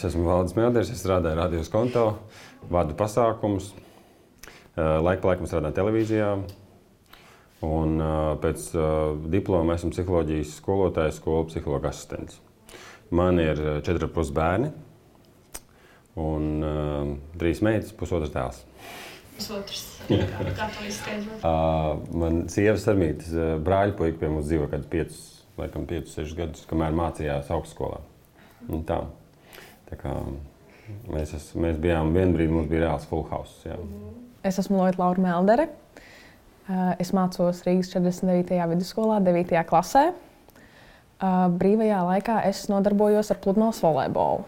Es esmu Valdis Melders, es strādāju Radio Skonto, vadu pasākumus, laiku pa laikam strādāju televīzijā. Un pēc diploma esmu psiholoģijas skolotājs, skolu psihologa asistents. Man ir 4,5 bērni un 3 meitas, 1,5 dēls. Pusotrs, kā to izskaidrot? Man sievas Sarmītes brāļpuika pie mums dzīvo kādus 5-6 gadus, kamēr mācījās augstskolā. Un tā. Tā kā mēs bijām vienu brīdi, mums bija reāls full house. Jā. Es esmu Lorita Laura Meldere. Es mācos Rīgas 49. vidusskolā, 9. klasē. Brīvajā laikā es nodarbojos ar pludmales volejbolu.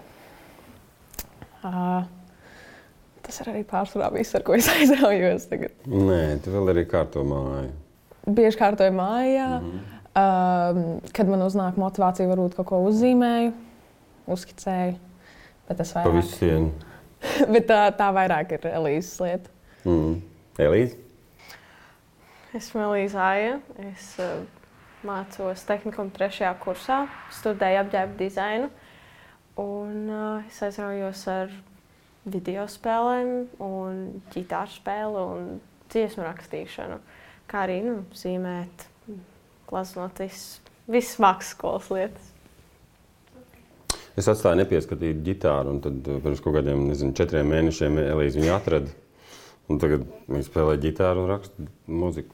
Tas ir arī pārsvarā viss, ar ko es aizraujos tagad. Nē, tu vēl arī kārto māju. Bieži kārtoju mājā. Kad man uznāk motivācija, varbūt kaut ko uzzīmēju, uzskicēju. Bet tas vairāk. Pa visu sienu. Bet tā vairāk ir Elīzes lieta. Elīze? Esmu Elīze Aija. Es mācos tehnikuma 3. kursā, studēju apģērba dizainu. Un es aizraujos ar video spēlēm, un ģitāru spēli un dziesmu rakstīšanu. Kā arī zīmēt, glaznot visas mākslas skolas lietas. Es atstāju nepieskatītu ģitāru, un tad pirms kaut kādiem, 4 mēnešiem Elīze viņu atrada. Un tagad viņa spēlē ģitāru un raksta mūziku.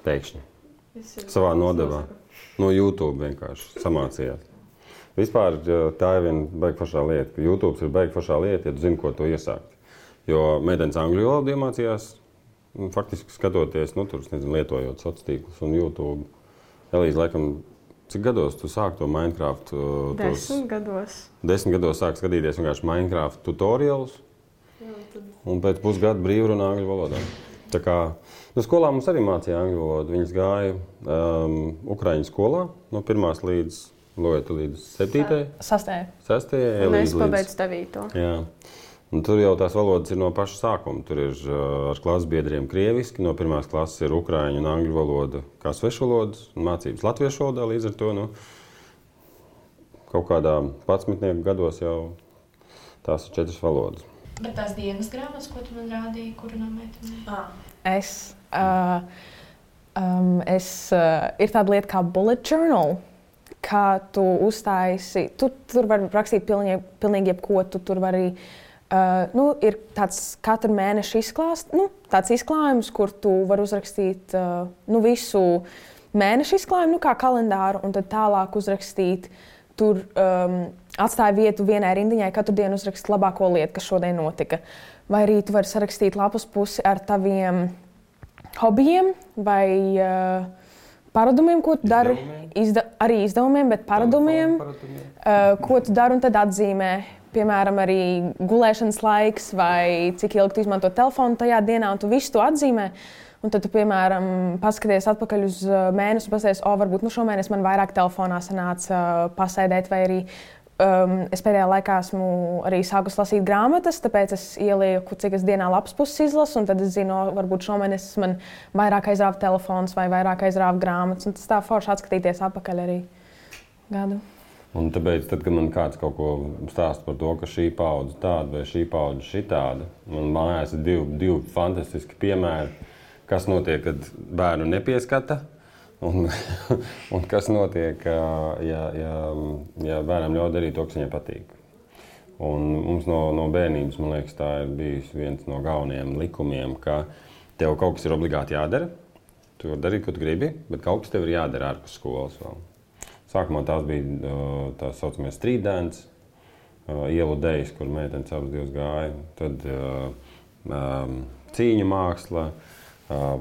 Pēkšņi. Savā nodevā. No YouTube vienkārši samācījās. Vispār tā ir viena baigi foršā lieta, ka YouTube ir baigi foršā lieta, ja tu zini, ko to iesākt. Jo meitenes angļu valodu iemācījās, faktiski skatoties, lietojot sociālos tīklus un YouTube. Elīze, laikam, cik gados tu sāki to Minecraft? 10 gados. 10 gados sāki skatīties vienkārši Minecraft tutorialus. Un pēc pusgada brīvrunā angļu valodā. Tā kā skolā mums arī mācīja angļu valodu. Viņas gāja Ukraiņu skolā no 1. līdz 7. 6. Un es pabeidzu 9. Jā. Un tur jau tās valodas ir no paša sākuma. Tur ir ar klases biedriem krieviski, no 1. klases ir ukraiņu un angļu valoda kā svešvalodas, un mācības latviešu valodā līdz ar to. Kaut kādā 11 gados jau tās ir 4 valodas. Bet tās dienas grāmatas, ko tu man rādīji, kura no meitenēm? Ir tāda lieta kā bullet journal, kā tu uztaisi. Tur var rakstīt pilnīgi jebko. Tu tur var arī ir tāds katru mēnešu tāds izklājums, kur tu vari uzrakstīt visu mēnešu izklājumu, kā kalendāru, un tad tālāk uzrakstīt. Tur atstāja vietu vienai rindiņai, katru dienu uzrakstīt labāko lietu, kas šodien notika. Vai arī tu vari sarakstīt lapas pusi ar taviem hobijiem vai paradumiem, ko tu dari. Arī izdevumiem, bet paradumiem, ko tu dari un tad atzīmē. Piemēram, arī gulēšanas laiks vai cik ilgi tu izmanto telefonu tajā dienā, un tu visu to atzīmē. Un tad tu, piemēram, paskaties atpakaļ uz mēnesi un paskaties, varbūt šomēnes man vairāk telefonā sanāca pasēdēt, vai arī es pēdējā laikā esmu arī sākus lasīt grāmatas, tāpēc es ielieku, cik es dienā lapas puses izlasu, un tad es zinu, varbūt šomēnes man vairāk aizrāva telefons vai vairāk aizrāva grāmatas, un tas tā forši atskatīties atpakaļ arī gadu. Un tāpēc, tad, kad man kāds kaut ko stāsta par to, ka šī paudze tāda vai šī paudze šitāda, man mājās ir divi fantastiski piemēri, kas notiek, kad bērnu nepieskata, un kas notiek, ja bērnam ļauj darīt to, kas viņai patīk. Un mums no bērnības, man liekas, tā ir bijis viens no galvenajiem likumiem, ka tev kaut kas ir obligāti jādara. Tu vari darīt, ko tu gribi, bet kaut kas tev ir jādara ārpus skolas vēl. Sākumā tās bija tās saucamie street dance, ielu dejas, kur meitenes abas divas gāja. Tad cīņu māksla,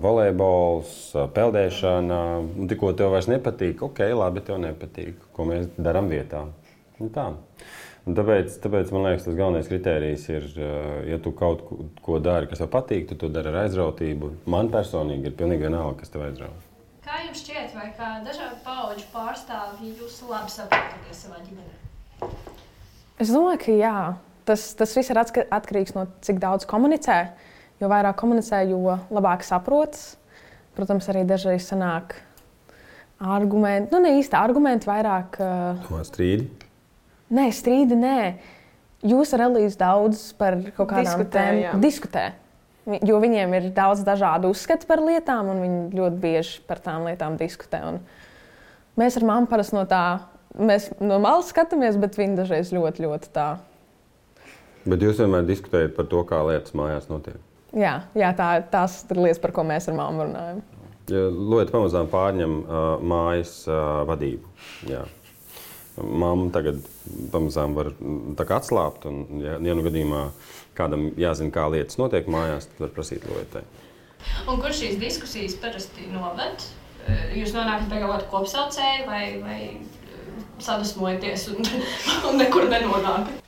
volejbols, peldēšana. Un tikko tev vairs nepatīk, labi, tev nepatīk, ko mēs darām vietā. Un tā. Un tāpēc, man liekas, tas galvenais kritērijs ir, ja tu kaut ko dari, kas tev patīk, tu to dari ar aizrautību. Man personīgi ir pilnīgi vienalga, kas tev aizrauj. Kā jums šķiet, vai kā dažādu paudžu pārstāvji jūs labi saprotaties savā ģimenē? Es domāju, ka jā. Tas viss ir atkarīgs no cik daudz komunicē. Jo vairāk komunicē, jo labāk saprotas. Protams, arī dažreiz sanāk argumenti. Ne īsti argumenti, vairāk... Strīdi? Nē, strīdi nē. Jūs ar Elīzu daudz par kaut kādām tēmām diskutē. Jo viņiem ir daudz dažādu uzskatu par lietām, un viņi ļoti bieži par tām lietām diskutē. Un mēs ar mammu parasti mēs no malas skatāmies, bet viņi dažreiz ļoti, ļoti tā. Bet jūs vienmēr diskutējat par to, kā lietas mājās notiek? Jā, tās ir lietas, par ko mēs ar mammu runājam. Ja Lieta pamazām pārņem mājas vadību. Jā. Mamma tagad pamazām var atslābt, un ja nu gadījumā kādam jāzina, kā lietas notiek mājās, tad var prasīt Lietai. Un kur šīs diskusijas parasti noved? Jūs nonākat pie kaut kāda kopsaucēja vai sadusmojaties un nekur nenonākat?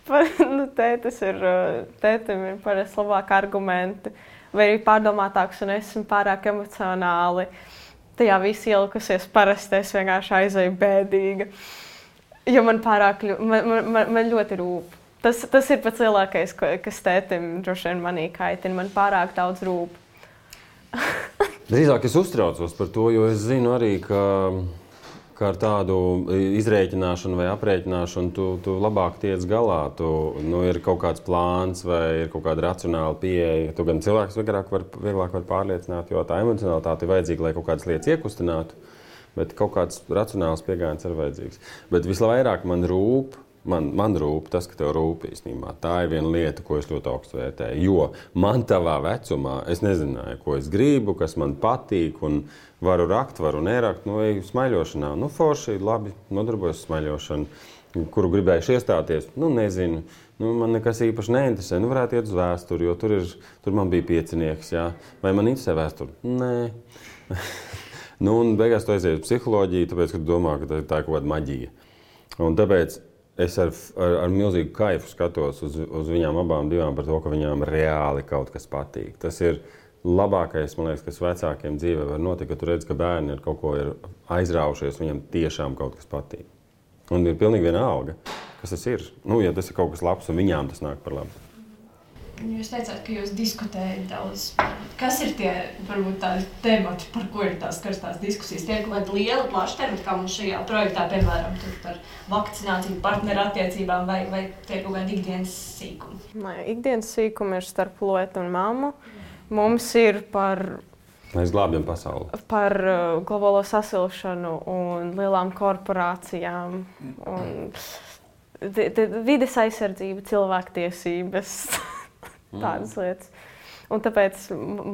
Tētim ir parasti labāki argumenti, vai arī pārdomātāks, un esmu pārāk emocionāli. Tajā viss ielikusies, parasti es vienkārši aizēju bēdīga. Jo man ļoti rūp. Tas ir pats lielākais, kas tētim droši vien manī kaitina. Man pārāk daudz rūp. Drīzāk es uztraucos par to, jo es zinu arī, ka ar tādu izrēķināšanu vai aprēķināšanu tu labāk tiec galā. Ir kaut kāds plāns vai ir kaut kāda racionāla pieeja. Tu gan cilvēks vieglāk var pārliecināt, jo tā emocionalitāte ir vajadzīga, lai kaut kādas lietas iekustinātu. Bet kaut kāds racionāls pieejams ir vajadzīgs. Bet visvairāk man rūp tas, ka tev rūp īstenībā. Tā ir viena lieta, ko es ļoti augstu vērtēju. Jo man tavā vecumā es nezināju, ko es gribu, kas man patīk, un varu rakt, varu nerakt. Smaiļošanā, forši, labi, nodarbojos smaiļošanu. Kuru gribējuši iestāties, nezinu. Man nekas īpaši neinteresē. Varētu iet uz vēsturi, jo tur man bija piecinieks. Jā. Vai man interesē vēsturi? Nē. Un beigās tu aizies uz psiholoģiju, tāpēc, ka tu domā, ka tā ir kaut kāda maģija. Un tāpēc es ar milzīgu kaifu skatos uz viņām abām divām par to, ka viņām reāli kaut kas patīk. Tas ir labākais, man liekas, kas vecākiem dzīvē var notikt, ka tu redz, ka bērni ar kaut ko ir aizraujušies, viņiem tiešām kaut kas patīk. Un ir pilnīgi vienalga, kas tas ir. Ja tas ir kaut kas labs un viņām tas nāk par labu. Jūs teicāt, ka jūs diskutējat daudz. Kas ir tie, varbūt, tādi temati, par ko ir tās karstās diskusijas? Tie ir kaut kādi lieli, plaši temati, kā mums šajā projektā, piemēram, par vakcināciju, partneru attiecībām, vai tie ir kaut kādi ikdienas sīkumi? Ikdienas sīkumi ir starp Lietu un mammu. Mums ir par... Mēs glābjam pasauli. Par globālo sasilšanu un lielām korporācijām. Un vides aizsardzība, cilvēktiesības. Tādas lietas. Un tāpēc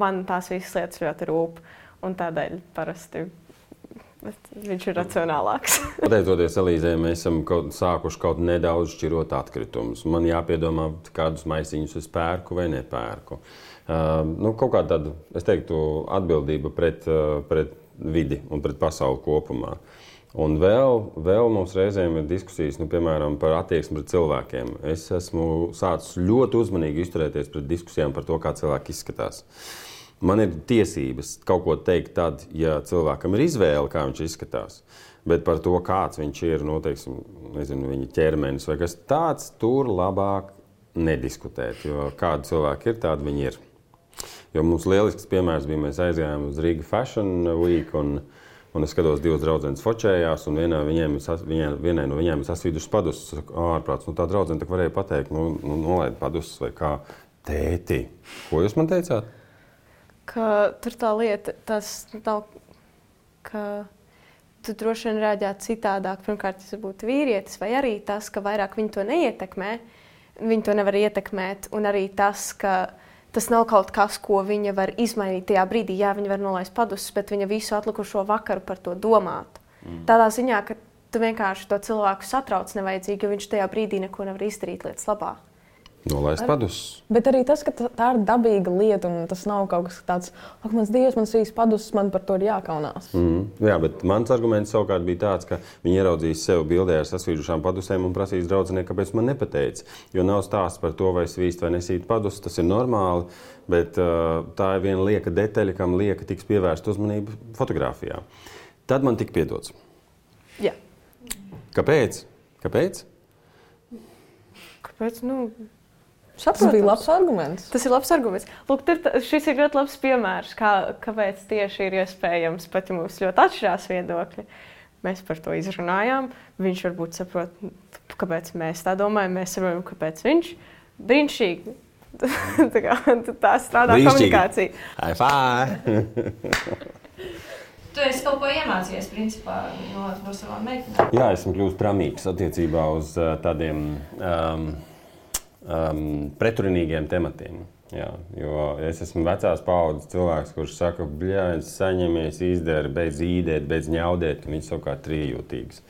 man tās visas lietas ļoti rūp. Un tādēļ parasti viņš ir racionālāks. Pateicoties Elīzei, mēs esam sākuši kaut nedaudz šķirot atkritumus. Man jāpiedomā, kādus maisiņus es pērku vai nepērku. Kaut kā tāda, es teiktu, atbildība pret vidi un pret pasauli kopumā. Un vēl mums reizēm ir diskusijas, piemēram, par attieksmi pret cilvēkiem. Es esmu sācis ļoti uzmanīgi izturēties pret diskusijām par to, kā cilvēki izskatās. Man ir tiesības kaut ko teikt tad, ja cilvēkam ir izvēle, kā viņš izskatās. Bet par to, kāds viņš ir, viņa ķermenis vai kas tāds, tur labāk nediskutēt. Jo kādi cilvēki ir, tādi viņi ir. Jo mums lielisks piemērs bija, mēs aizgājām uz Riga Fashion Week, un es skatos, divas draudzenes fočējās, un vienai no viņiem ir sasvīdušas padusas. Es saku, ārprāts, tā draudzene tak varēja pateikt, nolaid padusas vai kā. Tēti, ko jūs man teicāt? Ka tur tā lieta, tas nav, ka tu droši vien reaģētu citādāk. Pirmkārt, tas būtu vīrietis, vai arī tas, ka vairāk viņi to neietekmē, viņi to nevar ietekmēt, un arī tas, ka tas nav kaut kas, ko viņa var izmainīt tajā brīdī. Jā, viņa var nolaist padusas, bet viņa visu atlikušo vakaru par to domātu. Tādā ziņā, ka tu vienkārši to cilvēku satrauc nevajadzīgi, jo viņš tajā brīdī neko nevar izdarīt lietas labā. Nolaist padusas. Bet arī tas, ka tā ir dabīga lieta, un tas nav kaut kas tāds, ak, mans Dievs, man svīs padusas, man par to ir jākaunās. Jā, bet mans arguments savukārt bija tāds, ka viņi ieraudzīs sev bildē ar sasvīdušām padusēm un prasīs draudzenei, kāpēc man nepateica. Jo nav stāsts par to, vai svīst vai nesīt padusas, tas ir normāli, bet tā ir viena lieka detaļa, kam lieka tiks pievērsta uzmanība fotografijā. Tad man tika piedots. Jā. Kāpēc? Kāpēc? Tas bija labs arguments. Tas ir labs arguments. Lūk, šis ir ļoti labs piemērs, kāpēc tieši ir iespējams, pat ja mums ļoti atšķirās viedokļi. mēs par to izrunājām. Viņš varbūt saprot, kāpēc mēs tā domājam, mēs saprotam, kāpēc viņš. Brīnišķīgi. tā strādā komunikācija. High five! Tu esi kaut ko iemācījies, principā, no savām meitenēm? Jā, esmu kļūst pramīgs attiecībā uz tādiem pretrunīgiem tematiem. Jā, jo es esmu vecās paaudzes cilvēks, kurš saka, bļāņ, saņemies, izdara, beidz īdēt, beidz ņaudēt, un viņš savukārt trījūtīgs.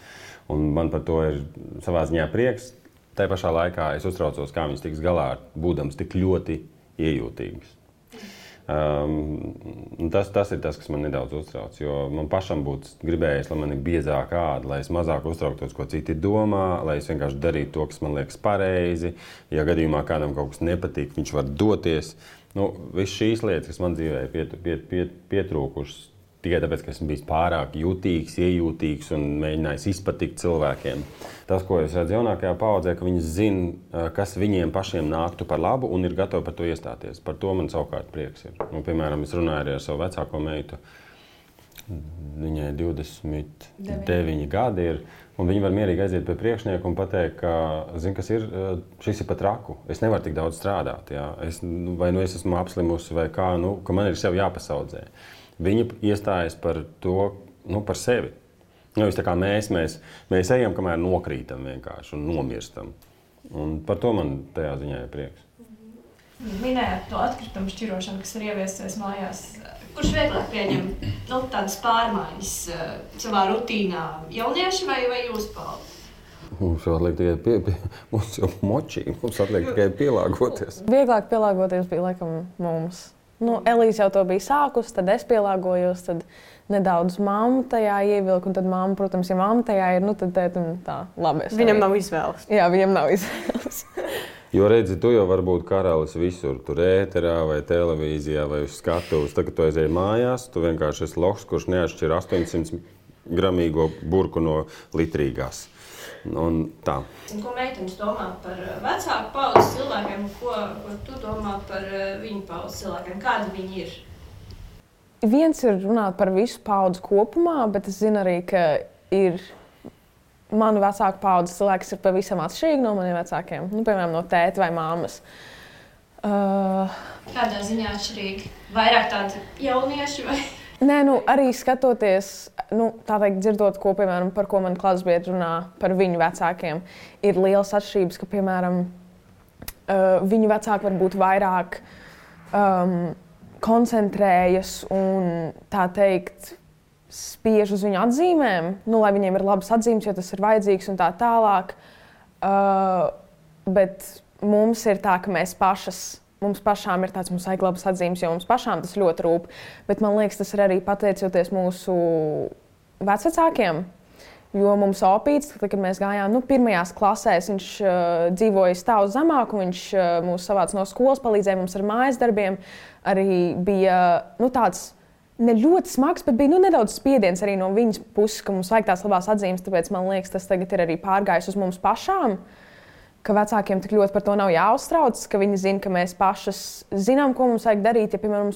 Un man par to ir savā ziņā prieks. Tā pašā laikā es uztraucos, kā viņš tiks galā, būdams tik ļoti iejūtīgs. Tas ir tas, kas man nedaudz uztrauc, jo man pašam būtu gribējis, lai man ir biezāka āda, lai es mazāk uztrauktos, ko citi domā, lai es vienkārši darītu to, kas man liekas pareizi. Ja gadījumā kādam kaut kas nepatīk, viņš var doties. Viss šīs lietas, kas man dzīvē ir pietrūkušas, tikai tāpēc, ka esmu bijis pārāk jutīgs, iejūtīgs un mēģinājis izpatikt cilvēkiem. Tas, ko es redzu jaunākajā paaudzē, ka viņi zina, kas viņiem pašiem nāktu par labu un ir gatavi par to iestāties. Par to man savukārt prieks ir. Piemēram, es runāju arī ar savu vecāko meitu. Viņai 29 gadi ir, un viņi var mierīgi aiziet pie priekšnieka un pateikt, ka, zin, kas ir, šis ir pat raku. Es nevaru tik daudz strādāt. Jā. Es esmu apslimusi vai kā, ka man ir sev jāpasaudzē. Viņa iestājas par to, par sevi. Nevis tā kā mēs ejam, kamēr nokrītam vienkārši un nomirstam. Un par to man tajā ziņā ir prieks. Minējāt to atkritumu šķirošanu, kas ir ieviesties mājās. Kurš vieglāk pieņem tādas pārmaiņas savā rutīnā? Jaunieši vai jūs paudze? Mums atliek tikai mums jau močīgi, mums atliek tikai pielāgoties. Vieglāk pielāgoties bija laikam mums. Elīze jau to bija sākusi, tad es pielāgojos, tad nedaudz mamma tajā ievilku, un tad mamma, protams, ja mamma tajā ir, tad tētim tā labi. Viņam nav izvēles. Jā, viņam nav izvēles. Jo redzi, tu jau vari būt karalis visur, tur ēterā vai televīzijā vai uz skatuves. Tad, kad tu aizēji mājās, tu vienkārši esi loks, kurš neatšķir 800 gramīgo burku no litrīgās. Un tā. Ko meitenes domā par vecāku paudzes cilvēkiem, ko tu domā par viņu paudzes cilvēkiem? Kādi viņi ir? Viens ir runāt par visu paudzi kopumā, bet es zinu arī, ka ir manu vecāku paudzes cilvēki, kas ir pavisam atšķirīgi no maniem vecākiem. Piemēram, no tēta vai mammas. Kādā ziņā atšķirīgi? Vairāk tādi jaunieši vai? Nē, arī skatoties, tā teikt, dzirdot, piemēram, par ko man klasbiedri runā par viņu vecākiem, ir liels atšķirības, ka, piemēram, viņu vecāki varbūt vairāk koncentrējas un, tā teikt, spiež uz viņu atzīmēm, lai viņiem ir labas atzīmes, jo tas ir vajadzīgs un tā tālāk. Bet mums ir tā, ka mums pašām ir tāds, mums vajag labas atzīmes, jo mums pašām tas ļoti rūp. Bet man liekas, tas ir arī pateicoties mūsu vecvecākiem. Jo mums opīts, kad mēs gājām pirmajās klasēs, viņš dzīvoja stāvu zemāk, un viņš mūs savāca no skolas, palīdzēja mums ar mājas darbiem. Arī bija tāds ne ļoti smags, bet bija nedaudz spiediens arī no viņas puses, ka mums vajag tās labās atzīmes. Tāpēc man liekas, tas tagad ir arī pārgājis uz mums pašām. Ka vecākiem tik ļoti par to nav jāuztrauc, ka viņi zina, ka mēs pašas zinām, ko mums vajag darīt. Ja, piemēram,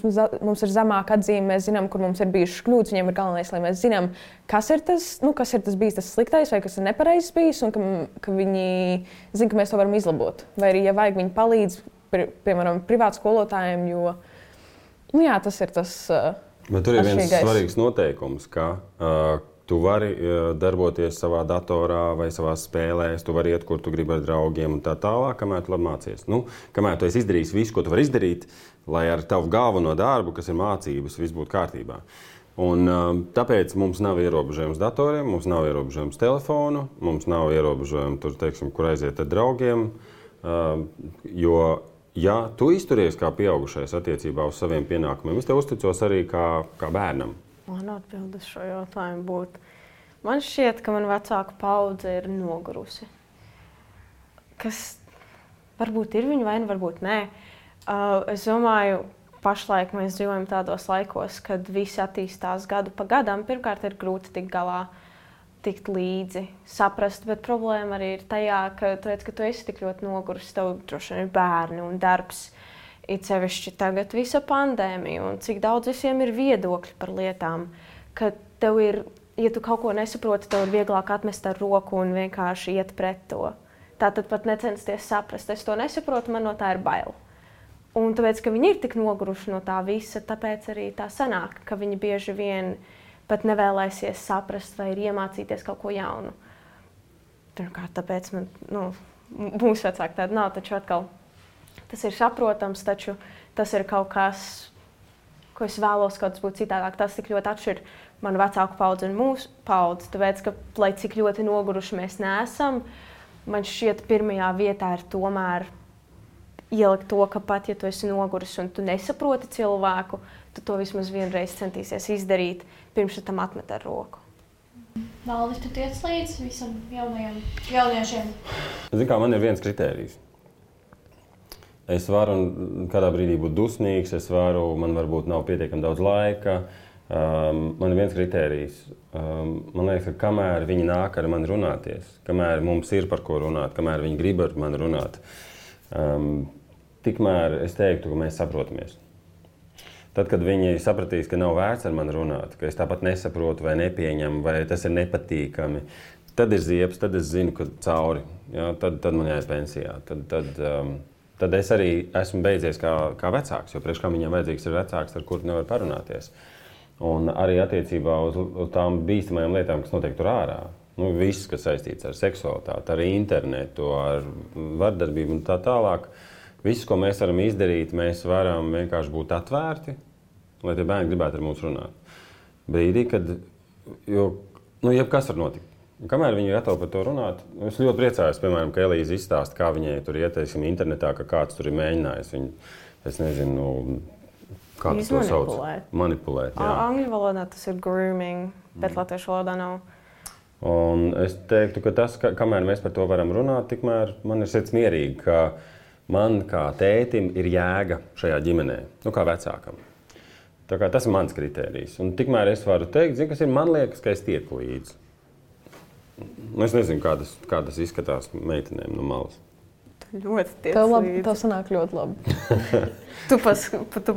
mums ir zemāka atzīme, mēs zinām, kur mums ir bijušas kļūdas. Viņiem ir galvenais, lai mēs zinām, kas ir tas bijis tas sliktais vai kas ir nepareizs bijis, un ka viņi zina, ka mēs to varam izlabot. Vai arī, ja vajag, viņi palīdz, piemēram, privātu skolotājiem, jo tas ir tas. Bet tur ir viens svarīgs noteikums, ka tu vari darboties savā datorā vai savā spēlēs, tu vari iet, kur tu gribi ar draugiem un tā tālāk, kamēr tu labi mācies. Kamēr tu esi izdarījis visu, ko tu vari izdarīt, lai ar tavu galveno darbu, kas ir mācības, viss būtu kārtībā. Un tāpēc mums nav ierobežojums datoriem, mums nav ierobežojums telefonu, mums nav ierobežojums tur, teiksim, kur aiziet ar draugiem, jo, ja tu izturies kā pieaugušais attiecībā uz saviem pienākumiem, es te uzticos arī kā bērnam. Man atbildes šo jautājumu būtu. Man šķiet, ka man vecāka paudze ir nogurusi. Kas varbūt ir viņa vaina, varbūt nē. Es domāju, pašlaik mēs dzīvojam tādos laikos, kad visi attīstās gadu pa gadam. Pirmkārt, ir grūti tikt galā, tikt līdzi, saprast, bet problēma arī ir tajā, ka tu esi tik ļoti nogurusi, tev droši vien ir bērni un darbs. It sevišķi tagad visa pandēmija un cik daudz visiem ir viedokļi par lietām, ka tev ir ja tu kaut ko nesaproti, tev ir vieglāk atmest ar roku un vienkārši iet pret to. Tātad pat necensties saprast, es to nesaprotu, man no tā ir bail. Un tāpēc, ka viņi ir tik noguruši no tā visa, tāpēc arī tā sanāk, ka viņi bieži vien pat nevēlēsies saprast vai ir iemācīties kaut ko jaunu. Pirmkārt, tāpēc mūsu vecāki tādi nav, taču atkal tas ir saprotams, taču tas ir kaut kas, ko es vēlos, kaut kas būtu citādāk. Tas tik ļoti atšķir manu vecāku paudzi un mūsu paudzi, tāpēc, ka, lai cik ļoti noguruši mēs neesam, man šķiet pirmajā vietā ir tomēr ielikt to, ka pat, ja tu esi noguris un tu nesaproti cilvēku, tu to vismaz vienreiz centīsies izdarīt, pirms tu tam atmet ar roku. Valdi, tu tiec līdz visam jauniešiem? Zini, kā man ir viens kritērijs. Es varu kādā brīdī būt dusmīgs, man varbūt nav pietiekami daudz laika. Man ir viens kritērijs. Man liekas, ka kamēr viņi nāk ar mani runāties, kamēr mums ir par ko runāt, kamēr viņi grib ar mani runāt, tikmēr es teiktu, ka mēs saprotamies. Tad, kad viņi sapratīs, ka nav vērts ar mani runāt, ka es tāpat nesaprotu vai nepieņemu, vai tas ir nepatīkami, tad ir ziepes, tad es zinu, ka cauri. Ja, tad man jāiet pensijā. Tad es arī esmu beidzies kā vecāks, jo priekš kā viņam vajadzīgs ir vecāks, ar kuru nevar parunāties. Un arī attiecībā uz tām bīstamajām lietām, kas notiek tur ārā. Viss, kas saistīts ar seksualitāti, ar internetu, ar vardarbību un tā tālāk. Viss, ko mēs varam izdarīt, mēs varam vienkārši būt atvērti, lai tie bērni gribētu ar mums runāt. Brīdī, kad jebkas var notikt. Kamēr viņi ir gatavi par to runāt, es ļoti priecājos, piemēram, ka Elīze izstāsta, kā viņai tur ieteiksim internetā, ka kāds tur ir mēģinājis viņu, es nezinu, kā tas to sauc? Manipulēt. Angļu valodā tas ir grooming, bet latviešu valodā nav. Un es teiktu, ka tas, kamēr mēs par to varam runāt, tikmēr man ir sirds mierīgi, ka man kā tētim ir jēga šajā ģimenē, kā vecākam. Tā kā tas ir mans kritērijs. Un tikmēr es varu teikt, kas ir, man liekas, ka es tieku līdzi. Es nezinu, kā tas izskatās meitenēm no malas. Tu ļoti tiec līdzi. Tev sanāk ļoti labi. Tu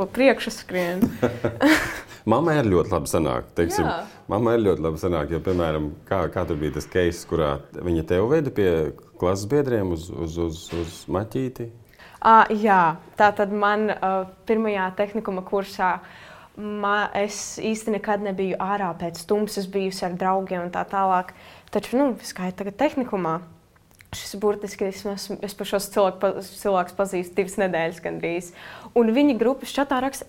pa priekšu skrien. Mammai ir ļoti labi sanāk, teiksim. Mammai ir ļoti labi sanāk, jo, piemēram, kā tur bija tas case, kurā viņa tev veda pie klases biedriem uz maķīti? Jā, tātad man pirmajā tehnikuma kursā es īsti nekad nebiju ārā pēc tumsas, bijusi ar draugiem un tā tālāk. Taču, kā ir tagad tehnikumā, šis burtiski es par šos cilvēkus pazīstu 2 nedēļas gandrīz. Un viņi grupas čatā raksta,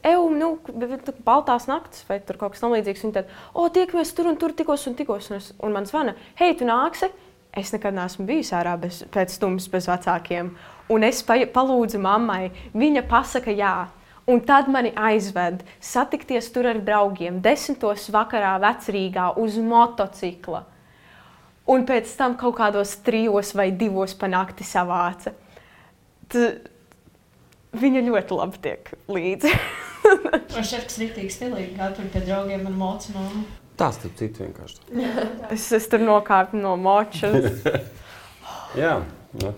baltās naktis vai tur kaut kas tam līdzīgs. Viņi tad, tiekamies tur un tur tikos. Un man zvana, hei, tu nāksi? Es nekad neesmu bijusi ārā pēc tumsas bez vecākiem. Un es palūdzu mammai, viņa pasaka jā. Un tad mani aizved satikties tur ar draugiem 10. vakarā Vecrīgā uz motocikla. Un pēc tam kaut kādos 3 vai 2 pa nakti savāca. Viņa ļoti labi tiek līdzi. Un šefs riktīgi stilīgi, kā tur pie draugiem ar mocu mammu. Tas tur cits vienkārši. Es tur nokāpu no močas. Jā,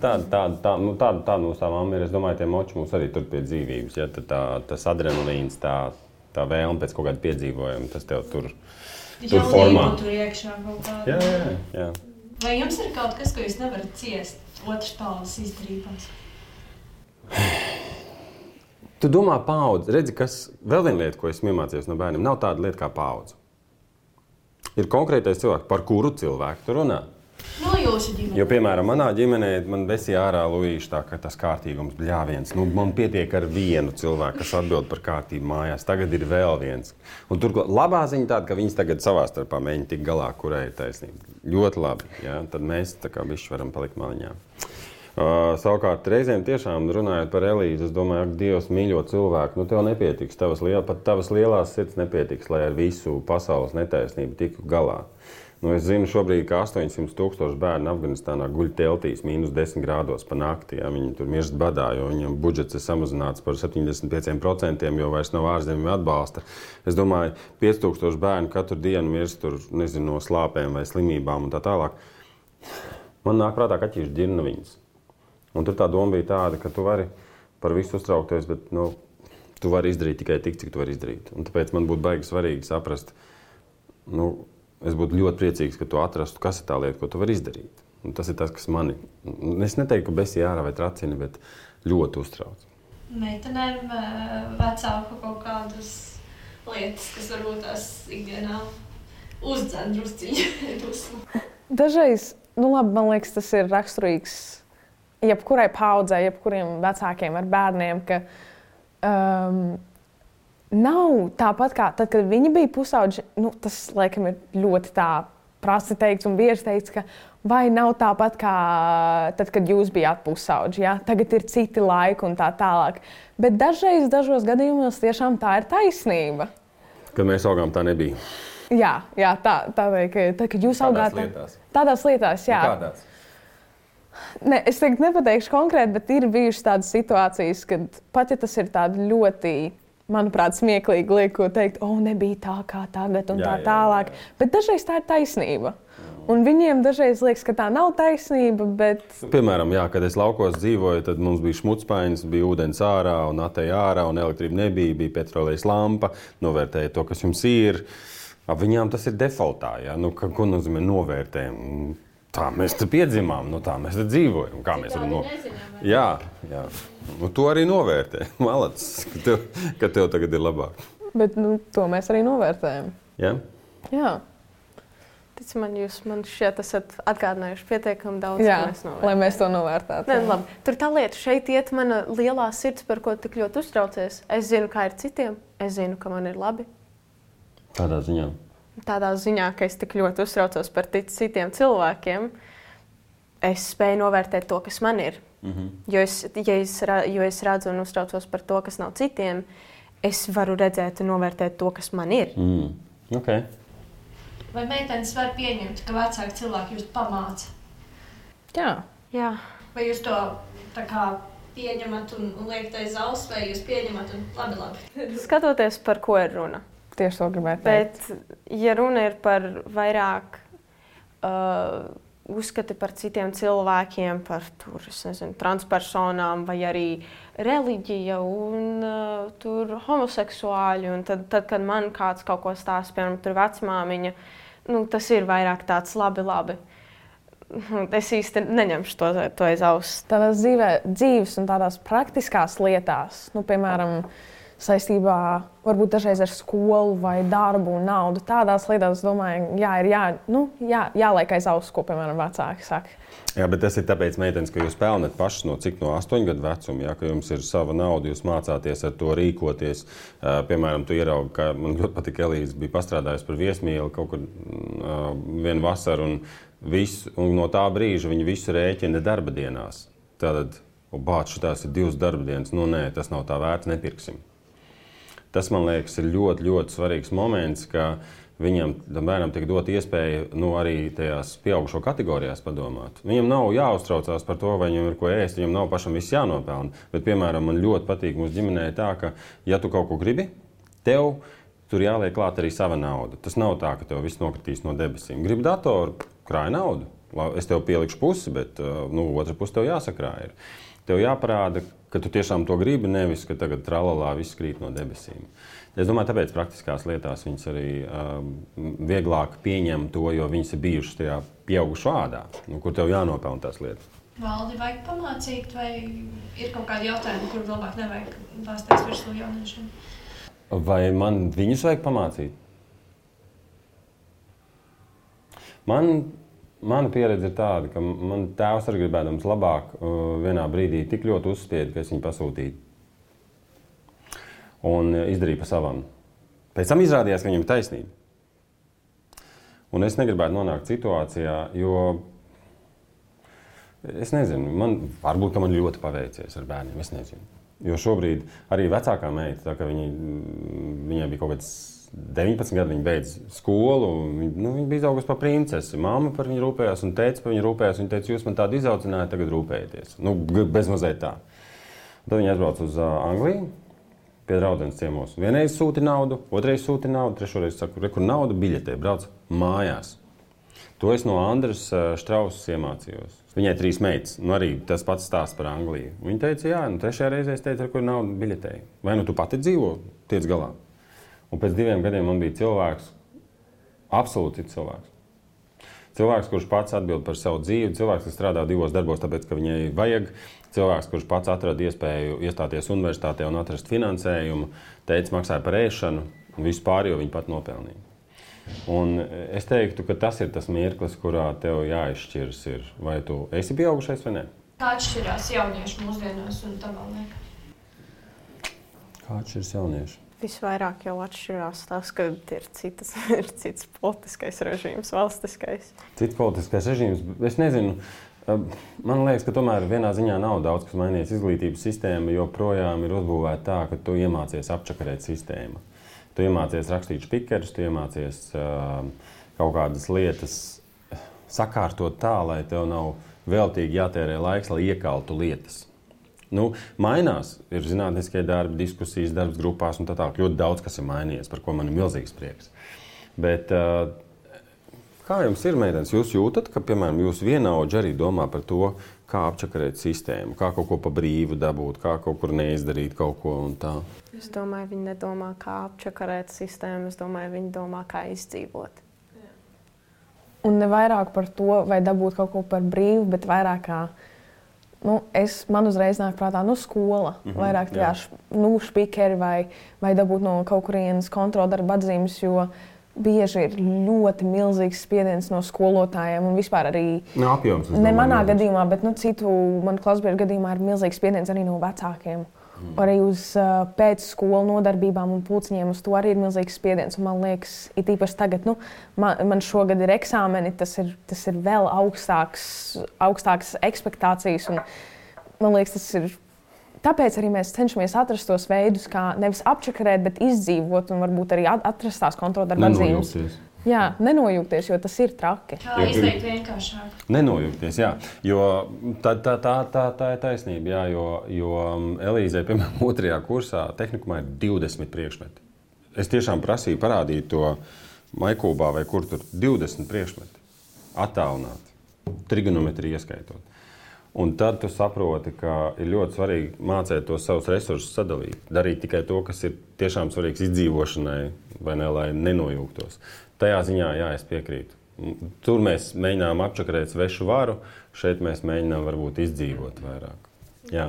tāda mūsu tā mamma ir. Es domāju, tie moči mums arī tur pie dzīvības. Ja, tas adrenalīns, tā vēlme pēc kaut kāda piedzīvojuma, tas tev tur formā. Tur iekšā kaut kāda. Jā. Vai jums ir kaut kas, ko jūs nevarat ciest otras paudzes izdarībās? Tu domā paudze. Redzi, vēl viena lieta, ko esmu iemācījies no bērniem, nav tāda lieta kā paudze. Ir konkrētais cilvēks, par kuru cilvēku tu runā. No jūsu ģimenē. Jo, piemēram, manā ģimenē man vesīja ārā Luīši tā, ka tas kārtīgums bļāviens. Man pietiek ar vienu cilvēku, kas atbild par kārtību mājās. Tagad ir vēl viens. Un tur labā ziņa tāda, ka viņas tagad savā starpā mēģina tikt galā, kurai ir taisnība. Ļoti labi. Ja? Tad mēs tā kā bišķi varam palikt maliņā. Savukārt, reizēm tiešām runājot par Elīzi, es domāju, ka Dievs mīļo cilvēku. Tev nepietiks, pat tavas lielās sirds nepietiks, lai ar visu pasaules netaisnību tiktu galā. Es zinu šobrīd, ka 800,000 bērnu Afganistānā guļ teltīs -10 grādos pa nakti. Ja? Viņi tur mirst badā, jo viņam budžets ir samazināts par 75%, jo vairs nav ārzemju atbalsta. Es domāju, 5,000 bērnu katru dienu mirst tur, nezinu, no slāpēm vai slimībām un tā tālāk. Man nāk prātā kaķīšu ģirnaviņas. Un tur tā doma bija tāda, ka tu vari par visu uztraukties, bet tu vari izdarīt tikai tik, cik tu vari izdarīt. Un tāpēc man būtu baigi svarīgi saprast, es būtu ļoti priecīgs, ka tu atrastu, kas ir tā lieta, ko tu vari izdarīt. Un tas ir tas, kas mani, es neteiktu, ka besī ārā vai tracina, bet ļoti uztrauc. Meitenēm vecāku kaut kādas lietas, kas varbūt tās ikdienā uzdzen drusciņu dusmu. Dažreiz, labi, man liekas, tas ir raksturīgs jebkurai paudzei, jebkuriem vecākiem ar bērniem, ka nav tāpat kā tad, kad viņi bija pusauģi, tas, laikam, ir ļoti tā prasti teikts un bieži teikts, ka vai nav tāpat kā tad, kad jūs bijāt pusauģi, ja? Tagad ir citi laiki un tā tālāk. Bet dažreiz, dažos gadījumos tiešām tā ir taisnība. Kad mēs augām, tā nebija. Jā, tā vajag, tad, kad jūs augāt. Tādās lietās, jā. Kādās? Ne, es tagad nepateikšu konkrēti, bet ir bijušas tādas situācijas, kad pat ja tas ir tādi ļoti, manuprāt, smieklīgi liek, ko teikt, nebija tā kā tagad un tā tālāk. Bet dažreiz tā ir taisnība. Un viņiem dažreiz liekas, ka tā nav taisnība, bet... Piemēram, kad es laukos dzīvoju, tad mums bija šmutspainis, bija ūdens ārā un atēja ārā un elektrība nebija, bija petrolejas lampa, novērtēja to, kas jums ir. Viņām tas ir defaultā, ja? Ko nozīmē novērtējam? Tā mēs te piedzimām, tā mēs te dzīvojam. Kā mēs varam Jā. To arī novērtē. Malacis, ka tev tagad ir labāk. Bet to mēs arī novērtējam. Jā? Jā. Tic man, jūs man šķiet esat atgādinājuši pietiekami daudz, Jā, ko mēs novērtējam. Lai mēs to novērtētu. Ne, labi. Tur tā lieta, šeit iet mana lielā sirds, par ko tik ļoti uztraucies. Es zinu, kā ir citiem, es zinu, ka man ir labi. Tādā ziņā? Tādā ziņā, ka es tik ļoti uztraucos par citiem cilvēkiem, es spēju novērtēt to, kas man ir. Jo es redzu un uztraucos par to, kas nav citiem, es varu redzēt un novērtēt to, kas man ir. Okay. Vai meitenes var pieņemt, ka vecāki cilvēki jūs pamāca? Jā. Vai jūs to tā kā pieņemat un liekat aiz auss, vai jūs pieņemat un labi? Skatoties, par ko ir runa. Tieši to gribētu teikt. Bet, ja runa ir par vairāk uzskati par citiem cilvēkiem, par transpersonām vai arī reliģija un homoseksuāļi, un tad, kad man kāds kaut ko stāsta, piemēram, tur vecmāmiņa, tas ir vairāk tāds labi. Es īsti neņemšu to aiz auss. Tādās dzīves un tādās praktiskās lietās, piemēram, saistībā varbūt dažreiz ar skolu vai darbu un naudu. Tādās lietās, es domāju, jāliek aiz auss, ko, piemēram, vecāki saka. Jā, bet tas ir tāpēc, meitenes, ka jūs pelnat pašas no 8 gadu vecuma, ka jums ir sava nauda, jūs mācāties ar to rīkoties. Piemēram, tu ieraugi, ka man ļoti patika Elīze bija pastrādājusi par viesmīli kaut kur vienu vasaru, un no tā brīža viņa visu rēķina darba dienās. Tātad, šitās ir 2 darba dienas, nē, tas nav tā vērts, nepirksim. Tas, man liekas, ir ļoti, ļoti svarīgs moments, ka viņam, bērnam, tiek dot iespēja arī tajās pieaugušo kategorijās padomāt. Viņam nav jāuztraucās par to, vai viņam ir ko ēst, viņam nav pašam viss jānopelna. Bet, piemēram, man ļoti patīk mūsu ģimenē tā, ka, ja tu kaut ko gribi, tev tur jāliek klāt arī sava nauda. Tas nav tā, ka tev viss nokritīs no debesīm. Gribi datoru, krāj naudu. Es tev pielikšu pusi, bet otra pusi tev jāsakrāj ir. Tev jāparāda, ka tu tiešām to gribi, nevis, ka tagad tralalā viss krīt no debesīm. Es domāju, tāpēc praktiskās lietās viņas arī vieglāk pieņem to, jo viņas ir bijušas tajā pieaugušo ādā, kur tev jānopelna tās lietas. Valdi vajag pamācīt, vai ir kaut kādi jautājumi, kur labāk nevajag bāzties virsū jauniešiem? Vai man viņus vajag pamācīt? Mana pieredze ir tāda, ka man tēvs arī gribēdams labāk vienā brīdī tik ļoti uzspieda, ka es viņu pasūtīju. Un izdarīju pa savam. Pēc tam izrādījās, ka viņam ir taisnība. Un es negribētu nonākt situācijā, jo es nezinu, varbūt, ka man ļoti paveicies ar bērniem, es nezinu. Jo šobrīd arī vecākā meita, tā ka viņai bija kaut kāds 19 gadi, viņa beidz skolu, viņa bija izaugusi par princesi. Māma par viņu rūpējās un tētis par viņu rūpējās. Viņa teica, jūs man tādu izaudzināju, tagad rūpējieties. Bezmazliet tā. Tad viņa aizbrauca uz Angliju, pie draudzenes ciemos. Vienreiz sūti naudu, otrreiz sūti naudu, trešoreiz saku, kur nauda biļetē, brauc mājās. To es no Andras Štrausas iemācījos. Viņai 3 meitas, arī tas pats stāsts par Angliju. Viņa teica, jā, trešajā reizē es teicu, kur nauda biļetē. Vai tu pati dzīvo, tiec galā? Un pēc 2 gadiem man bija cilvēks Absolūti cits cilvēks. Cilvēks, kurš pats atbild par savu dzīvi, cilvēks, kas strādā 2 darbos, tāpēc, ka viņai vajag, cilvēks, kurš pats atrada iespēju iestāties universitātē un atrast finansējumu, teica, maksāja par ēšanu, un visu pārējo viņi pat nopelnīja. Un es teiktu, ka tas ir tas mirklis, kurā tev jāizšķiras ir, vai tu esi pieaugušais vai ne? Kā atšķirās jaunieši mūsdienās un tavā liekā? Kā atšķiras jaunieši? Visvairāk jau atšķirās tas, ka ir cits politiskais režīms, valstiskais. Cits politiskais režīms, es nezinu. Man liekas, ka tomēr vienā ziņā nav daudz, kas mainījies. Izglītības sistēma joprojām ir uzbūvēta tā, ka tu iemācies apčakarēt sistēmu. Tu iemācies rakstīt špikerus, tu iemācies kaut kādas lietas sakārtot tā, lai tev nav veltīgi jātērē laiks, lai iekaltu lietas. Mainās, ir zinātniskie darbi, diskusijas, darbs grupās un tā tālāk. Ļoti daudz, kas ir mainījies, par ko man ir milzīgs prieks. Bet kā jums ir, meitenes? Jūs jūtat, ka, piemēram, jūs vienaudži arī domā par to, kā apčakarēt sistēmu, kā kaut ko pa brīvu dabūt, kā kaut kur neizdarīt kaut ko un tā? Es domāju, viņi nedomā, kā apčakarēt sistēmu, es domāju, viņi domā, kā izdzīvot. Un ne vairāk par to, vai dabūt kaut ko par brīvu, bet vairāk kā man uzreiz nāk prātā skola. Vairāk špikeri vai dabūt no kaut kurienes kontroldarba atzīmes, jo bieži ir ļoti milzīgs spiediens no skolotājiem un vispār arī apjoms, ne manā gadījumā, bet citu manu klasbiedru gadījumā ir milzīgs spiediens arī no vecākiem. Arī uz pēcskolu nodarbībām un pulciņiem uz to arī ir milzīgs spiediens. Un man liekas, it īpaši tagad, man šogad ir eksāmeni, tas ir vēl augstākas ekspektācijas. Un, man liekas, tas ir. Tāpēc arī mēs cenšamies atrast tos veidus, kā nevis apčakarēt, bet izdzīvot un varbūt arī atrast tās kontroldarba atzīmes. Jā, nenojūgties, jo tas ir traki. Kā izteikt vienkāršāk? Nenojūgties, jā. Jo tā ir taisnība, jā, jo Elīzei, piemēram, 2. kursā tehnikumā ir 20 priekšmeti. Es tiešām prasīju parādīt to Maikūbā vai kur tur 20 priekšmeti. Attālināt, trigonometriju ieskaitot. Un tad tu saproti, ka ir ļoti svarīgi mācīt tos savus resursus sadalīt. Darīt tikai to, kas ir tiešām svarīgs izdzīvošanai, vai ne, lai nenojūgtos. Tajā ziņā, jā, es piekrītu. Tur mēs mēģinām apčakarēt svešu varu, šeit mēs mēģinām varbūt izdzīvot vairāk. Jā.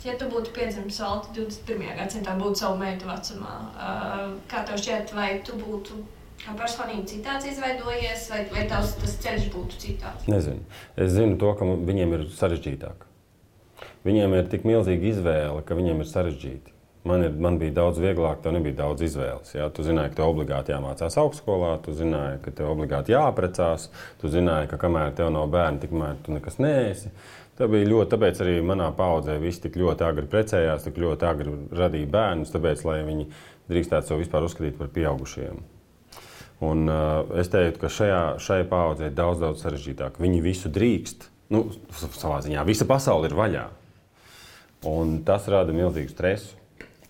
Ja tu būtu piedzimis vēl 21. gadsimtā, būtu savu meitu vecumā, kā tev šķiet, vai tu būtu kā personīgi citāds izveidojies, vai tas ceļš būtu citāds? Nezinu. Es zinu to, ka viņiem ir sarežģītāk. Viņiem ir tik milzīga izvēle, ka viņiem ir sarežģīti. Man bija daudz vieglāk, tev nebija daudz izvēles. Jā? Tu zināji, ka tev obligāti jāmācās augstskolā, tu zināji, ka tev obligāti jāaprecās, tu zināji, ka kamēr tev nav bērni, tikmēr tu nekas neesi. Tā bija ļoti, tāpēc arī manā paudzē visi tik ļoti agri precējās, tik ļoti agri radīja bērnus, tāpēc, lai viņi drīkstētu sev vispār uzskatīt par pieaugušiem. Un es teiktu, ka šai paudzē ir daudz sarežģītāk. Viņi visu drīkst, savā ziņā, visa pasaule ir vaļā. Un tas rada milzīgu stresu.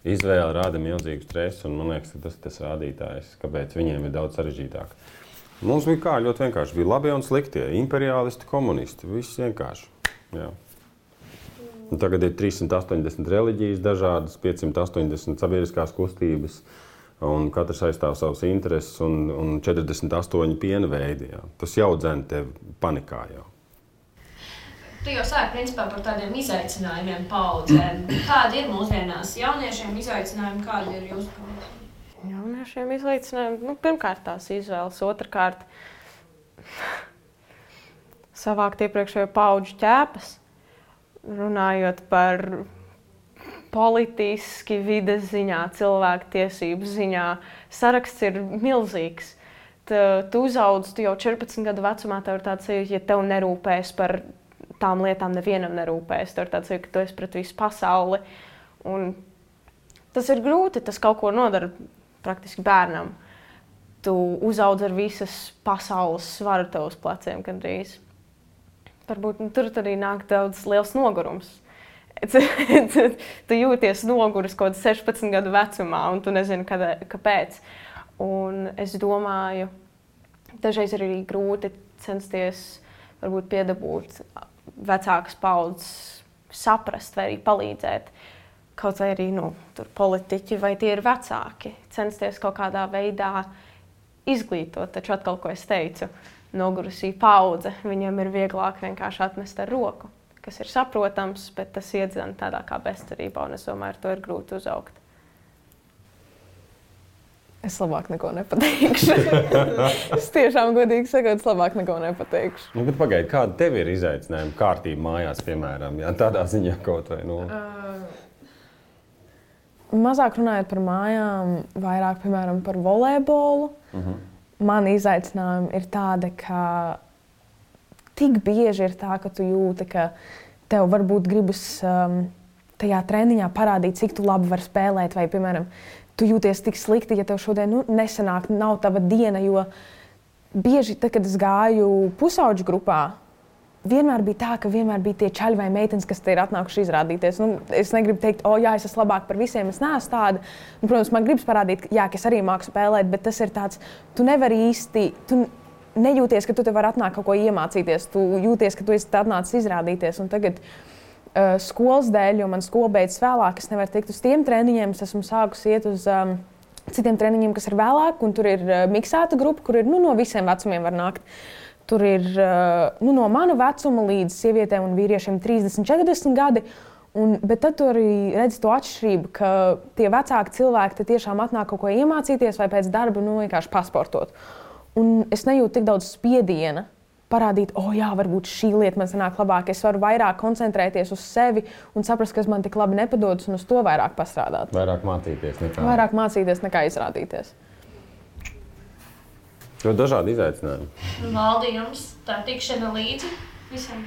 Izvēle rada milzīgu stresu, un man liekas, ka tas ir tas rādītājs, kāpēc viņiem ir daudz sarežģītāk. Mums bija ļoti vienkārši. Bija labie un sliktie, imperialisti, komunisti, viss vienkārši. Jā. Un tagad ir 380 reliģijas dažādas, 580 sabiedriskās kustības, un katrs aizstāv savas intereses, un 48 piena veidi. Jā. Tas jau dzen tevi panikā jau. Tu jau sāki principā par tādiem izaicinājumiem paudzēm. Kādi ir mūsdienās jauniešiem izaicinājumi, kādi ir jūsu paudzēm? Jauniešiem izaicinājumi, pirmkārt tās izvēles, otrkārt savākt iepriekšējo paudžu ķēpas, runājot par politiski, vides ziņā, cilvēku tiesību ziņā. Saraksts ir milzīgs. Tu uzaudzi, tu jau 14 gadu vecumā, tev ir tāds sajūta, ja tev nerūpēs par tām lietām, nevienam nerūpēs. Tev ir tāds sajūta, ka tu esi pret visu pasauli. Un tas ir grūti, tas kaut ko nodara praktiski bērnam. Tu uzaudzi ar visas pasaules svaru tev uz pleciem gandrīz. Varbūt tur arī nāk daudz liels nogurums. Tu jūties noguris kaut 16 gadu vecumā, un tu nezini, kāpēc. Un es domāju, dažreiz ir arī grūti censties varbūt piedabūt vecākas paudzes saprast vai arī palīdzēt. Kaut vai arī tur politiķi vai tie ir vecāki. Censties kaut kādā veidā izglītot. Taču atkal, ko es teicu, nogurusī paudze, viņiem ir vieglāk vienkārši atmest ar roku, kas ir saprotams, bet tas iedzena tādā kā bezcerībā, un es domāju, ar to ir grūti uzaugt. Es labāk neko nepateikšu. Es tiešām godīgi sakot, es labāk neko nepateikšu. Nu, bet pagaidi, kāda tev ir izaicinājuma kārtība mājās, piemēram, ja tādā ziņā kaut vai, nu? Mazāk runājot par mājām, vairāk, piemēram, par volejbolu. Man izaicinājumi ir tādi, ka tik bieži ir tā, ka tu jūti, ka tev varbūt gribas tajā treniņā parādīt, cik tu labi vari spēlēt, vai, piemēram, tu jūties tik slikti, ja tev šodien nesanāk, nav tava diena, jo bieži, tad, kad es gāju pusauģu grupā, vienmēr bija tā, ka vienmēr bija tie čaļi vai meitenes, kas te ir atnākuši izrādīties. Nu, es negribu teikt, jā, es esmu labāk par visiem, es neesmu tāda. Nu, protams, man gribas parādīt, jā, ka es arī māku spēlēt, bet tas ir tāds, tu nevari īsti, tu nejūties, ka tu te vari atnākt kaut ko iemācīties, tu jūties, ka tu esi atnācis izrādīties. Un tagad skolas dēļ, jo man skola beidzas vēlāk, es nevaru tikt uz tiem treniņiem, es esmu sākusi iet uz citiem treniņiem, kas ir vēlāk, un tur ir miksēta grupa, kur ir no visiem vecumiem var nākt. Tur ir no mana vecuma līdz sievietēm un vīriešiem 30, 40 gadi, bet tad tu arī redzi to atšķirību, ka tie vecāki cilvēki te tiešām atnāk kaut ko iemācīties vai pēc darba vienkārši pasportot. Un es nejūtu tik daudz spiediena parādīt, jā, varbūt šī lieta man sanāk labāk. Es varu vairāk koncentrēties uz sevi un saprast, kas man tik labi nepadodas, un uz to vairāk pastrādāt. Vairāk mācīties nekā izrādīties. Ļoti dažādi izaicinājumi. Valdi, jums tā tikšana līdzi visam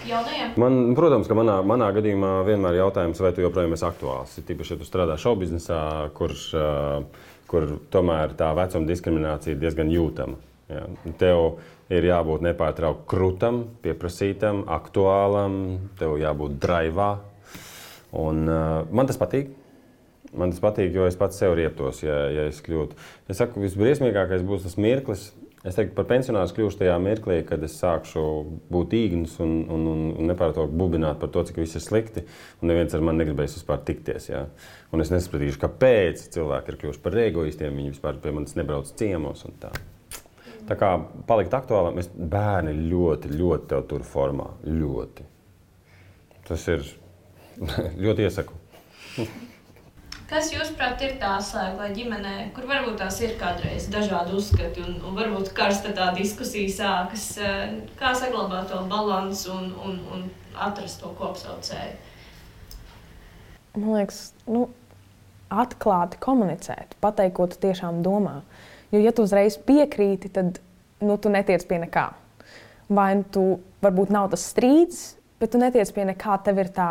jaunajiem? Protams, ka manā gadījumā vienmēr jautājums, vai tu joprojām esi aktuāls. Tīpaši, ja tu strādā šoubiznesā, kur tomēr tā vecuma diskriminācija ir diezgan jūtama. Ja. Tev ir jābūt nepārtraukti krūtam, pieprasītam, aktuālam, tev jābūt draivā. Un man tas patīk. Man tas patīk, jo es pats sev rieptos, ja es kļūtu. Es saku, visbriesmīgākais būs tas mirklis. Es teiktu, par pensionāru kļūšu tajā mirklī, kad es sākšu būt īgns un nepārtraukti bubināt par to, cik viss ir slikti. Un neviens ar mani negribēs vispār tikties. Ja? Un es nesapratīšu, kāpēc cilvēki ir kļuvuši par egoistiem. Viņi vispār pie manis nebrauc ciemos un tā. Tā kā palikt aktuālam, bērni ļoti, ļoti tev tur formā. Ļoti. Tas ir ļoti iesaku. Kas, jūsuprāt, ir tā slēgla ģimenē, kur varbūt tās ir kādreiz dažādi uzskati un varbūt karsta tā diskusija sākas, kā saglabāt to balansu un atrast to kopsaucēju? Man liekas, atklāti komunicēt, pateikt, ko tu tiešām domā. Jo, ja tu uzreiz piekrīti, tad tu netiec pie nekā. Vai tu varbūt nav tas strīds, bet tu netiec pie nekā, tev ir tā.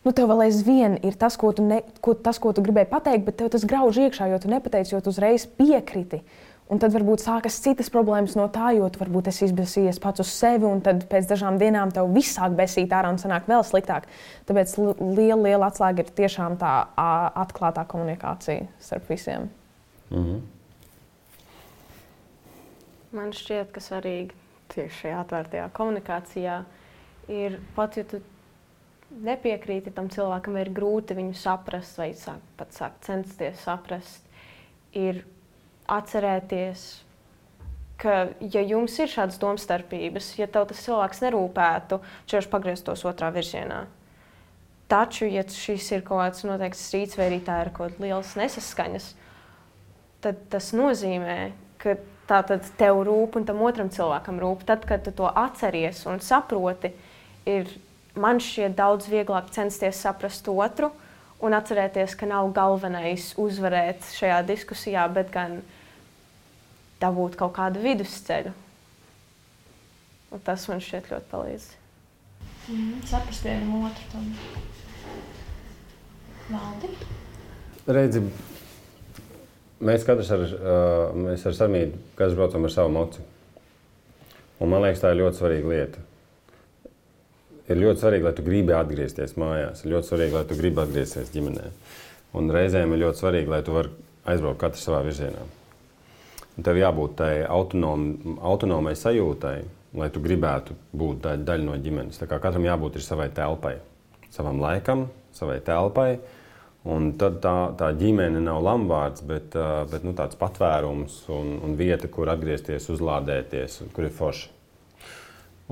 Tev vēl aizvien ir tas, ko tu gribēji pateikt, bet tev tas grauž iekšā, jo tu nepateici, jo tu uzreiz piekriti. Un tad varbūt sākas citas problēmas no tā, jo tu varbūt esi izbēsījies pats uz sevi, un tad pēc dažām dienām tev viss sāk besīt ārā un sanāk vēl sliktāk. Tāpēc liela atslēga ir tiešām tā atklātā komunikācija starp visiem. Man šķiet, ka svarīgi tieši šajā atvērtajā komunikācijā ir pat, ja tu nepiekrīti tam cilvēkam, ir grūti viņu saprast vai pat sākt censties saprast, ir atcerēties, ka, ja jums ir šādas domstarpības, ja tev tas cilvēks nerūpētu, viņš pagrieztos otrā virzienā. Taču, ja šis ir kaut kāds noteikts strīds vai arī tā ir kaut kāds liels nesaskaņas, tad tas nozīmē, ka tātad tev rūp un tam otram cilvēkam rūp. Tad, kad tu to atceries un saproti, man šķiet daudz vieglāk censties saprast otru un atcerēties, ka nav galvenais uzvarēt šajā diskusijā, bet gan dabūt kaut kādu vidusceļu. Un tas man šķiet ļoti palīdz. Saprast vienam otru tam. Valdi? Redzi, mēs katrs ar Samīdu, katrs braucam ar savu moci. Un man liekas, tā ir ļoti svarīga lieta. Ir ļoti svarīgi, lai tu gribi atgriezties mājās. Ir ļoti svarīgi, lai tu gribi atgriezties ģimenē. Un reizēm ir ļoti svarīgi, lai tu vari aizbraukt katrs savā virzienā. Un tev jābūt tai autonomai sajūtai, lai tu gribētu būt daļa no ģimenes. Tā kā katram jābūt ir savai telpai, savam laikam, savai telpai. Un tad tā ģimene nav lamvārds, bet tāds patvērums un vieta, kur atgriezties, uzlādēties, kur ir forši.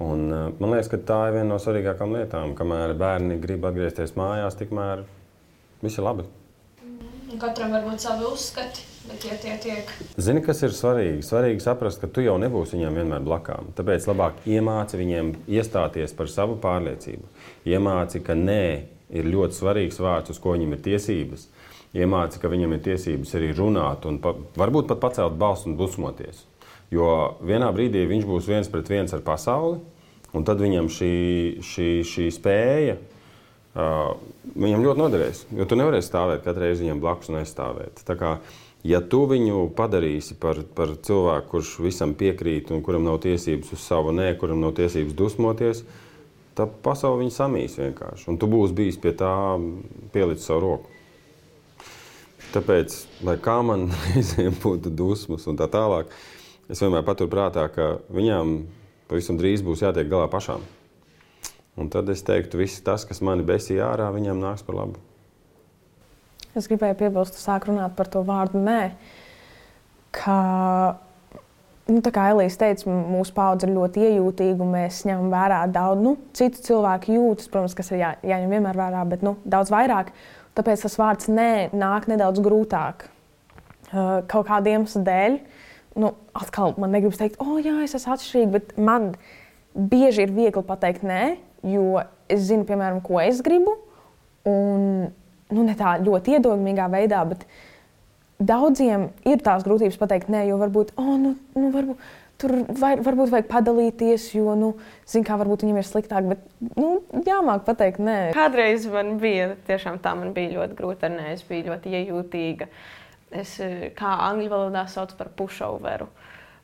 Un man liekas, ka tā ir viena no svarīgākām lietām. Kamēr bērni grib atgriezties mājās, tikmēr viss ir labi. Katram var būt savi uzskati, bet ja tie tiek... Zini, kas ir svarīgi? Svarīgi saprast, ka tu jau nebūsi viņiem vienmēr blakām. Tāpēc labāk iemāci viņiem iestāties par savu pārliecību. Iemāci, ka nē ir ļoti svarīgs vārds, uz ko viņam ir tiesības. Iemāci, ka viņam ir tiesības arī runāt un varbūt pat pacelt balsu un dusmoties. Jo vienā brīdī viņš būs 1-pret-1 ar pasauli, un tad viņam šī spēja viņam ļoti noderēs. Jo tu nevarēsi stāvēt katru reizi viņam blakus un aizstāvēt. Tā kā, ja tu viņu padarīsi par cilvēku, kurš visam piekrīt un kuram nav tiesības uz savu nē, kuram nav tiesības dusmoties, tad pasauli viņu samīs vienkārši. Un tu būsi bijis pie tā pielicis savu roku. Tāpēc, lai kā man reizēm būtu dusmas un tā tālāk, es vienmēr paturu prātā, ka viņām pavisam drīz būs jātiek galā pašām. Un tad es teiktu, viss tas, kas mani besīja ārā, viņam nāks par labu. Es gribēju piebilst, sāk runāt par to vārdu nē, ka, tā kā Elīze teica, mūsu paudze ir ļoti iejūtīga un mēs ņemam vērā daudz, citu cilvēku jūtas, protams, kas ir jāņem vienmēr vērā, bet daudz vairāk. Tāpēc tas vārds nē nāk nedaudz grūtāk. Kaut kādiem iemeslu dēļ. Atkal man negribas teikt, jā, es esmu atšķirīga, bet man bieži ir viegli pateikt nē, jo es zinu, piemēram, ko es gribu. Un, ne tā ļoti iedomīgā veidā, bet daudziem ir tās grūtības pateikt nē, jo varbūt, varbūt tur varbūt vajag padalīties, jo, zin kā, varbūt viņam ir sliktāk, bet, jāmāk pateikt nē. Kādreiz man bija, tiešām tā man bija ļoti grūti ar nē, es biju ļoti iejūtīga. Es, kā angļu valodā sauc par pushoveru.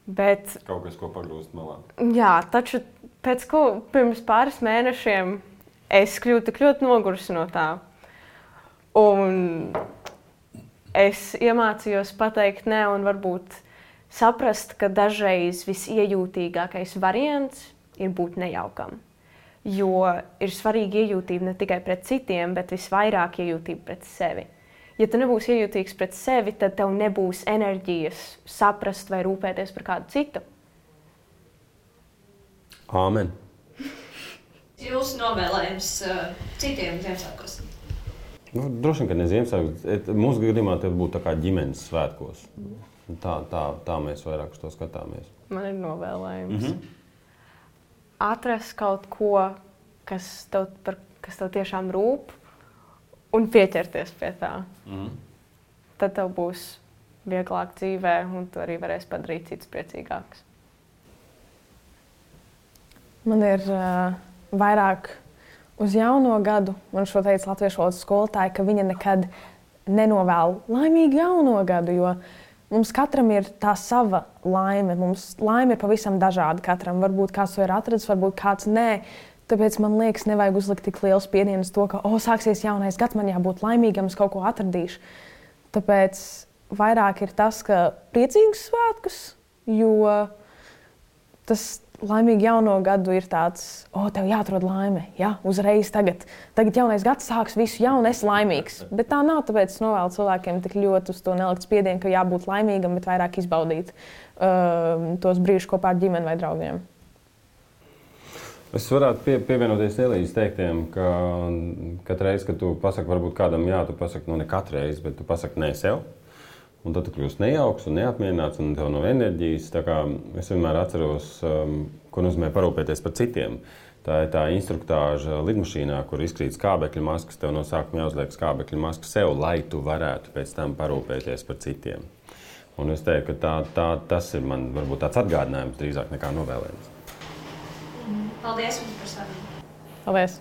Bet, kaut kas, ko pagrūst malā. Jā, taču pirms pāris mēnešiem es kļuvu tik ļoti nogurusi no tā. Un es iemācījos pateikt nē un varbūt saprast, ka dažreiz visiejūtīgākais variants ir būt nejaukam. Jo ir svarīgi iejūtība ne tikai pret citiem, bet visvairāk iejūtība pret sevi. Ja tu nebūsi iejūtīgs pret sevi, tad tev nebūs enerģijas saprast vai rūpēties par kādu citu. Āmen. Jūsu novēlējums citiem Ziemassvētkos? Droši vien, ka ne Ziemassvētkos. Mūsu gadījumā tas būtu tā kā ģimenes svētkos. Tā mēs vairāk uz to skatāmies. Man ir novēlējums. Atrast kaut ko, kas tev tiešām rūp, un pieķerties pie tā. Tad tev būs vieglāk dzīvē, un tu arī varēsi padarīt citus priecīgākus. Man ir vairāk uz jauno gadu, man šo teica latviešu valodas skolotāja, ka viņa nekad nenovēl laimīgu jauno gadu, jo mums katram ir tā sava laime. Mums laime ir pavisam dažāda katram. Varbūt kāds to ir atradzis, varbūt kāds nē. Tāpēc man liekas, nevajag uzlikt tik lielu spiedienu uz to, ka sāksies jaunais gads, man jābūt laimīgam, es kaut ko atradīšu. Tāpēc vairāk ir tas, ka priecīgus svētkus, jo tas laimīgi jauno gadu ir tāds, tev jāatrod laime, uzreiz tagad jaunais gads sāks visu jaunu, esi laimīgs. Bet tā nav, tāpēc es novēlu cilvēkiem tik ļoti uz to nelikt spiedienu, ka jābūt laimīgam, bet vairāk izbaudīt tos brīžus kopā ar ģimeni vai draugiem. Es varētu pievienoties Elīzes teiktiem, ka katru reizi, kad tu pasaki varbūt kādam jā, tu pasaki, ne katru reizi, bet tu pasaki nē sev. Un tad tu kļūst nejauks un neapmierināts un tev nav enerģijas. Tā kā es vienmēr atceros, ko nozīmē parūpēties par citiem. Tā ir tā instruktāža lidmašīnā, kur izkrīt skābekļa maskas, tev no sākuma jāuzliek skābekļa maska sev, lai tu varētu pēc tam parūpēties par citiem. Un es teiktu, ka tas ir man varbūt tāds atgādinājums drīzāk nekā novēlējums. Paldies jums par sarunu. Paldies!